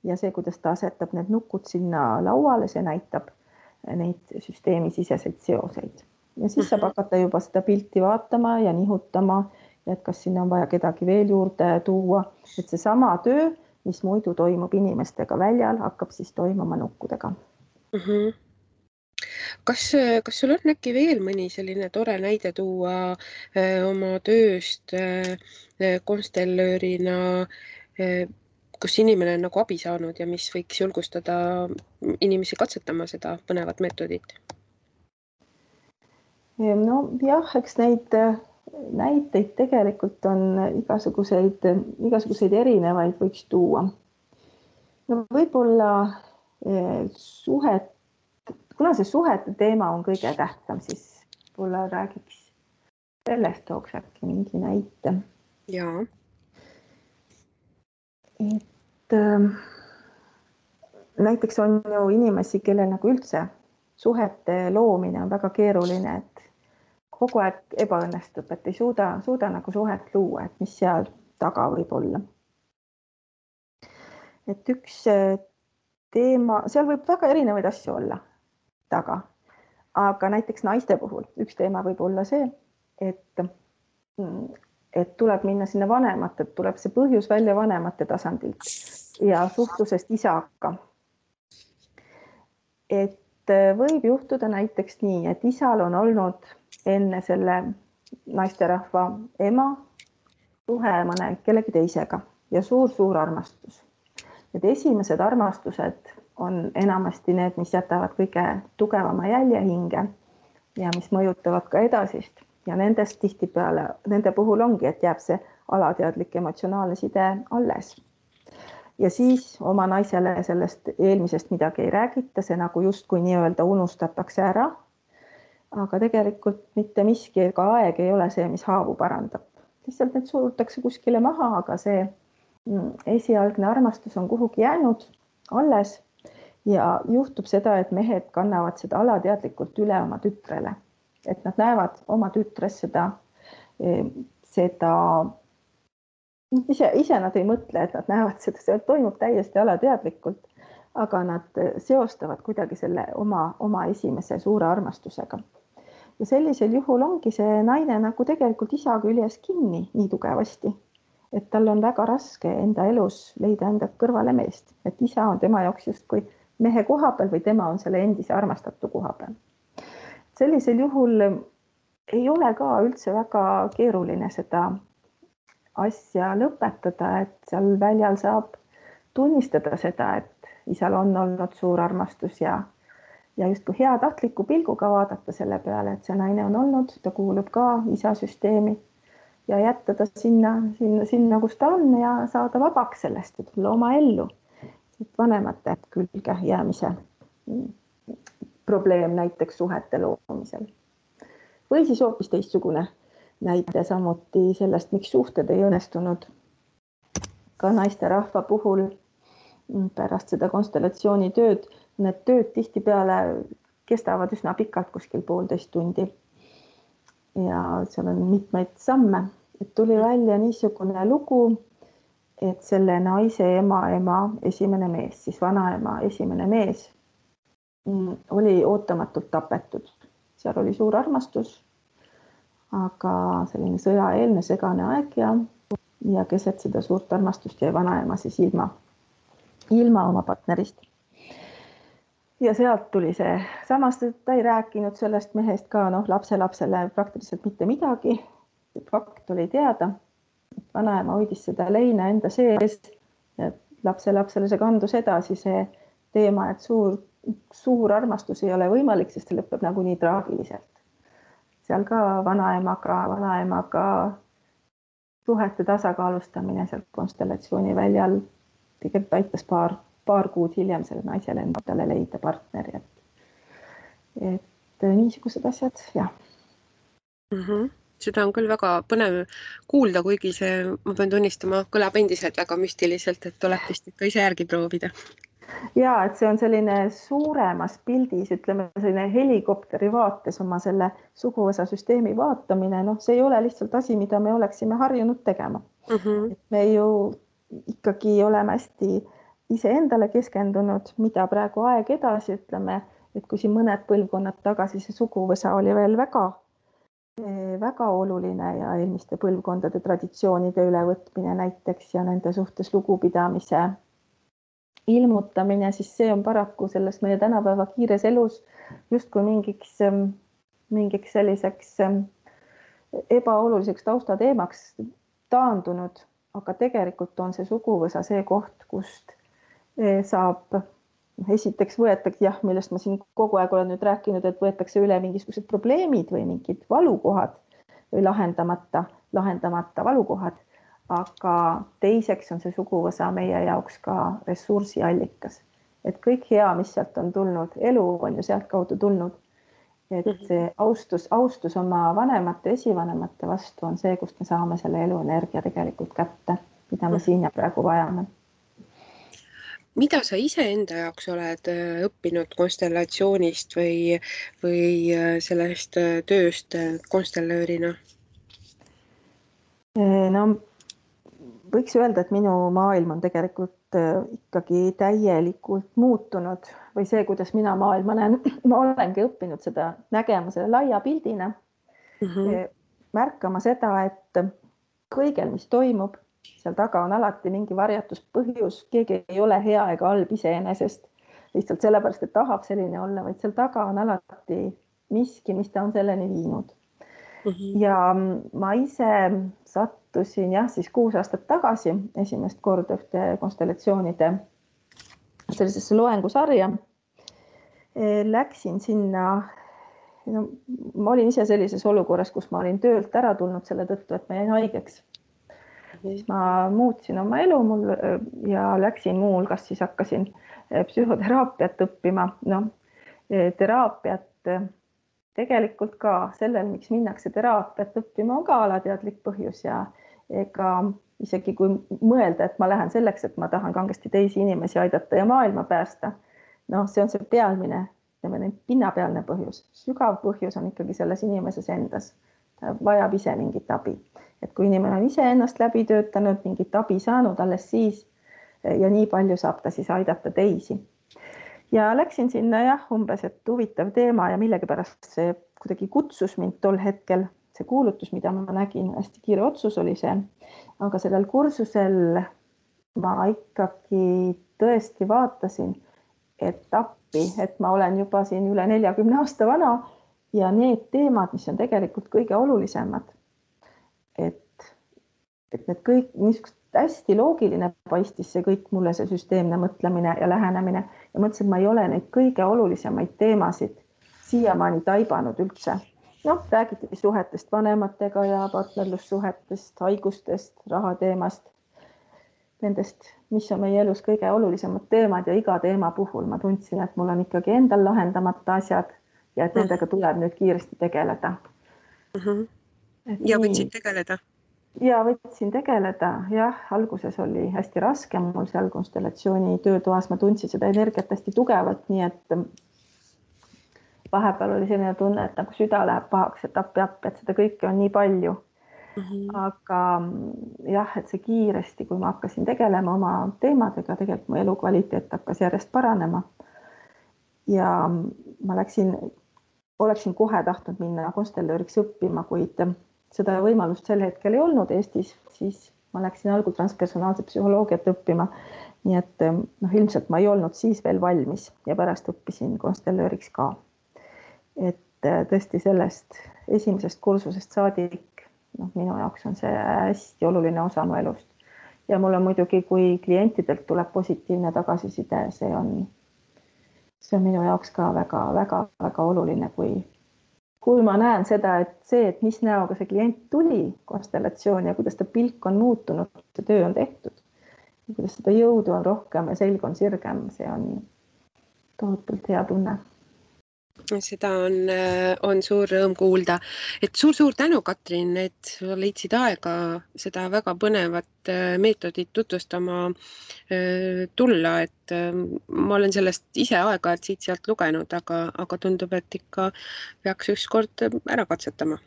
ja see, kuidas ta asetab need nukud sinna lauale, see näitab neid süsteemisiseseid seoseid. Ja siis saab hakata juba seda pilti vaatama ja nihutama, et kas sinna on vaja kedagi veel juurde tuua, et see sama töö, mis muidu toimub inimestega väljal, hakkab siis toimuma nukkudega. Kas sul on äkki veel mõni selline tore näide tuua oma tööst konstellöörina, kus inimene on nagu abi saanud ja mis võiks julgustada inimesi katsetama seda põnevat meetodit? No jah, eks neid näiteid tegelikult on igasuguseid erinevaid võiks tuua. No võib-olla kuna see suhete teema on kõige tähtsam, siis võib-olla räägiks sellest, tooks äkki mingi näite. Jaa. Et näiteks on ju inimesi, kellel nagu üldse suhete loomine on väga keeruline, et kogu aeg ebaõnnestub, et ei suuda nagu suhet luua, et mis seal taga võib olla. Et üks teema, seal võib väga erinevaid asju olla taga, aga näiteks naiste puhul üks teema võib olla see, et tuleb minna sinna vanemate, tuleb see põhjus välja vanemate tasandilt ja suhtlusest isaga. Et võib juhtuda näiteks nii, et isal on olnud enne selle naisterahva ema suhe mõne kellegi teisega ja suur armastus. Need esimesed armastused on enamasti need, mis jätavad kõige tugevama jälje hinge ja mis mõjutavad ka edasist. Ja nendest tihtipeale, nende puhul ongi, et jääb see alateadlik emotsionaalne side alles. Ja siis oma naisele sellest eelmisest midagi ei räägita, see nagu justkui nii-öelda unustatakse ära. Aga tegelikult mitte miski ega aeg ei ole see, mis haavu parandab. Lihtsalt need surutakse kuskile maha, aga see esialgne armastus on kuhugi jäänud alles ja juhtub seda, et mehed kannavad seda alateadlikult üle oma tütrele. Et nad näevad oma tütres seda ise nad ei mõtle, et nad näevad seda, see toimub täiesti alateadlikult, aga nad seostavad kuidagi selle oma esimese suure armastusega. Ja sellisel juhul ongi see naine nagu tegelikult isa küljes kinni nii tugevasti, et tal on väga raske enda elus leida enda kõrvale meest, et isa on tema jaoks justkui mehe koha peal või tema on selle endise armastatu koha peal. Sellisel juhul ei ole ka üldse väga keeruline seda asja lõpetada, et seal väljal saab tunnistada seda, et isal on olnud suur armastus ja justkui heatahtliku pilguga vaadata selle peale, et see naine on olnud, ta kuulub ka isasüsteemi ja jätta ta sinna, kus ta on ja saada vabaks sellest, et tulla oma ellu. Vanemate külge jäämise probleem näiteks suhete loomisel. Või siis hoopis teistsugune näite samuti sellest, miks suhted ei õnnestunud ka naisterahva puhul pärast seda konstellatsiooni tööd. Need tööd tihtipeale kestavad üsna pikalt, kuskil 1,5 tundi. Ja seal on mitmeid samme. Et tuli välja niisugune lugu, et selle naise ema esimene mees, siis vanaema esimene mees oli ootamatult tapetud. Seal oli suur armastus, aga selline sõjaeelne segane aeg ja keset seda suurt armastust jäi vanaema siis ilma oma partnerist. Ja sealt tuli see, samas ta ei rääkinud sellest mehest ka lapselapsele praktiliselt mitte midagi. Fakt oli teada, et vanaema hoidis seda leina enda sees ja lapselapsele see kandus edasi see teema, et suur armastus ei ole võimalik, sest see lõpeb nagu nii traagiliselt. Seal ka vanaemaga suhete tasakaalustamine seal konstellatsiooni väljal tegelikult aitas paar kuud hiljem selle naisele endale leida partneri. Et niisugused asjad, jah. Seda on küll väga põnev kuulda, kuigi see, ma pean tunnistama, kõlab endiselt väga müstiliselt, et tuleb vist ikka ise järgi proovida. Ja, et see on selline suuremas pildis, ütleme selline helikopteri vaates oma selle suguvõsa süsteemi vaatamine. Noh, see ei ole lihtsalt asi, mida me oleksime harjunud tegema. Et me ju ikkagi oleme hästi iseendale keskendunud, mida praegu aeg edasi, ütleme, et kui siin mõned põlvkonnad tagasi see suguvõsa oli veel väga oluline ja eelmiste põlvkondade traditsioonide ülevõtmine näiteks ja nende suhtes lugupidamise ilmutamine, siis see on paraku selles meie tänapäeva kiires elus justkui mingiks selliseks ebaoluliseks taustateemaks taandunud, aga tegelikult on see suguvõsa see koht, kust saab esiteks võetakse, millest ma siin kogu aeg olen nüüd rääkinud, et võetakse üle mingisugused probleemid või mingid valukohad või lahendamata valukohad. Aga teiseks on see suguvõsa meie jaoks ka ressursiallikas. Et kõik hea, mis sealt on tulnud, elu on ju sealt kaudu tulnud. Et see austus oma vanemate, esivanemate vastu on see, kust me saame selle eluenergia tegelikult kätte, mida me siin ja praegu vajame. Mida sa iseenda jaoks oled õppinud konstellatsioonist või sellest tööst konstellöörina? No, võiks öelda, et minu maailm on tegelikult ikkagi täielikult muutunud või see, kuidas mina maailma näen, ma olengi õppinud seda nägema selle laia pildina, märkama seda, et kõigel, mis toimub, seal taga on alati mingi varjatuspõhjus, keegi ei ole hea ega halb iseenesest, lihtsalt sellepärast, et tahab selline olla, vaid seal taga on alati miski, mis ta on selleni viinud. Ja ma ise sattusin siis 6 aastat tagasi esimest korda ühte konstellatsioonide sellisesse loengusarja. Läksin sinna, ma olin ise sellises olukorras, kus ma olin töölt ära tulnud selle tõttu, et ma jäin haigeks. Siis ma muutsin oma elu ja läksin muu hulgas, siis hakkasin psühhoteraapiat õppima. Teraapiat tegelikult ka sellel, miks minnakse teraapiat õppima, on ka alateadlik põhjus ja ega isegi kui mõelda, et ma lähen selleks, et ma tahan kangesti teisi inimesi aidata ja maailma päästa, see on see pealmine, pinnapealne põhjus. Sügav põhjus on ikkagi selles inimeses endas. Ta vajab ise mingit abi. Et kui inimene on ise ennast läbi töötanud, mingit abi saanud alles siis ja nii palju saab ta siis aidata teisi. Ja läksin sinna umbes, et huvitav teema ja millegipärast see kuidagi kutsus mind tol hetkel. See kuulutus, mida ma nägin, hästi kiire otsus oli see. Aga sellel kursusel ma ikkagi tõesti vaatasin, et appi, et ma olen juba siin üle 40 aasta vana ja need teemad, mis on tegelikult kõige olulisemad. Et need kõik niisugust hästi loogiline paistis see kõik mulle, see süsteemne mõtlemine ja lähenemine ja mõtlesin, et ma ei ole neid kõige olulisemaid teemasid siiamaani taibanud üldse. Räägiti suhetest vanematega ja partnerlussuhetest, haigustest, rahateemast, nendest, mis on meie elus kõige olulisemad teemad ja iga teema puhul ma tundsin, et mul on ikkagi endal lahendamata asjad ja et nendega tuleb nüüd kiiresti tegeleda. Ja võtsid tegeleda? Ja võtsin tegeleda, alguses oli hästi raske, mul seal konstellatsiooni töötoas ma tundsin seda energiat hästi tugevalt, nii et vahepeal oli selline tunne, et nagu süda läheb pahaks, et appi, et seda kõike on nii palju. Aga et see kiiresti, kui ma hakkasin tegelema oma teemadega, tegelikult mu elukvaliteet hakkas järjest paranema. Ja ma oleksin kohe tahtnud minna konstellööriks õppima, kuid seda võimalust sel hetkel ei olnud Eestis, siis ma läksin algul transpersonaalset psühholoogiat õppima. Nii et ilmselt ma ei olnud siis veel valmis ja pärast õppisin konstellööriks ka. Et tõesti sellest esimesest kursusest saadik, minu jaoks on see hästi oluline osa mu elust. Ja mul on muidugi, kui klientidelt tuleb positiivne tagasiside, see on minu jaoks ka väga oluline, kui ma näen seda, et mis näoga see klient tuli konstellatsiooni ja kuidas ta pilk on muutunud, see töö on tehtud, kuidas seda jõudu on rohkem ja selg on sirgem, see on tohutult hea tunne. Seda on suur rõõm kuulda. Et suur-suur tänu, Katrin, et sa leidsid aega seda väga põnevat meetodit tutvustama tulla. Et ma olen sellest ise aeg-ajalt siit-sealt lugenud, aga tundub, et ikka peaks ükskord ära katsetama.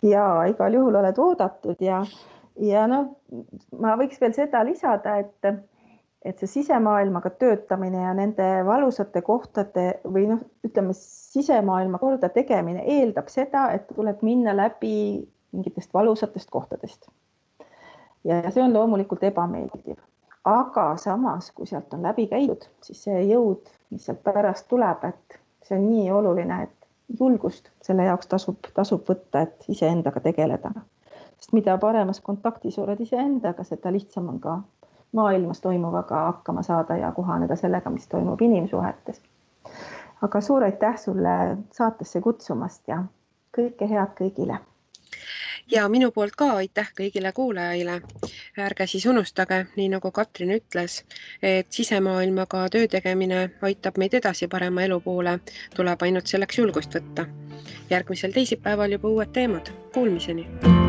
Ja igal juhul oled oodatud ja noh, ma võiks veel seda lisada, et see sisemaailmaga töötamine ja nende valusate kohtade või noh, ütleme sisemaailma korda tegemine eeldab seda, et tuleb minna läbi mingitest valusatest kohtadest. Ja see on loomulikult ebameeldiv. Aga samas, kui sealt on läbi käidud, siis see jõud, mis sealt pärast tuleb, et see on nii oluline, et julgust selle jaoks tasub võtta, et iseendaga tegeleda. Sest mida paremas kontaktis oled iseendaga, seda lihtsam on ka maailmas toimuvaga hakkama saada ja kohaneda sellega, mis toimub inimsuhetes. Aga suur aitäh sulle saatesse kutsumast ja kõike head kõigile. Ja minu poolt ka aitäh kõigile kuulajaile. Ärge siis unustage, nii nagu Katrin ütles, et sisemaailmaga töö tegemine aitab meid edasi parema elu poole, tuleb ainult selleks julgust võtta. Järgmisel teisipäeval juba uued teemad. Kuulmiseni!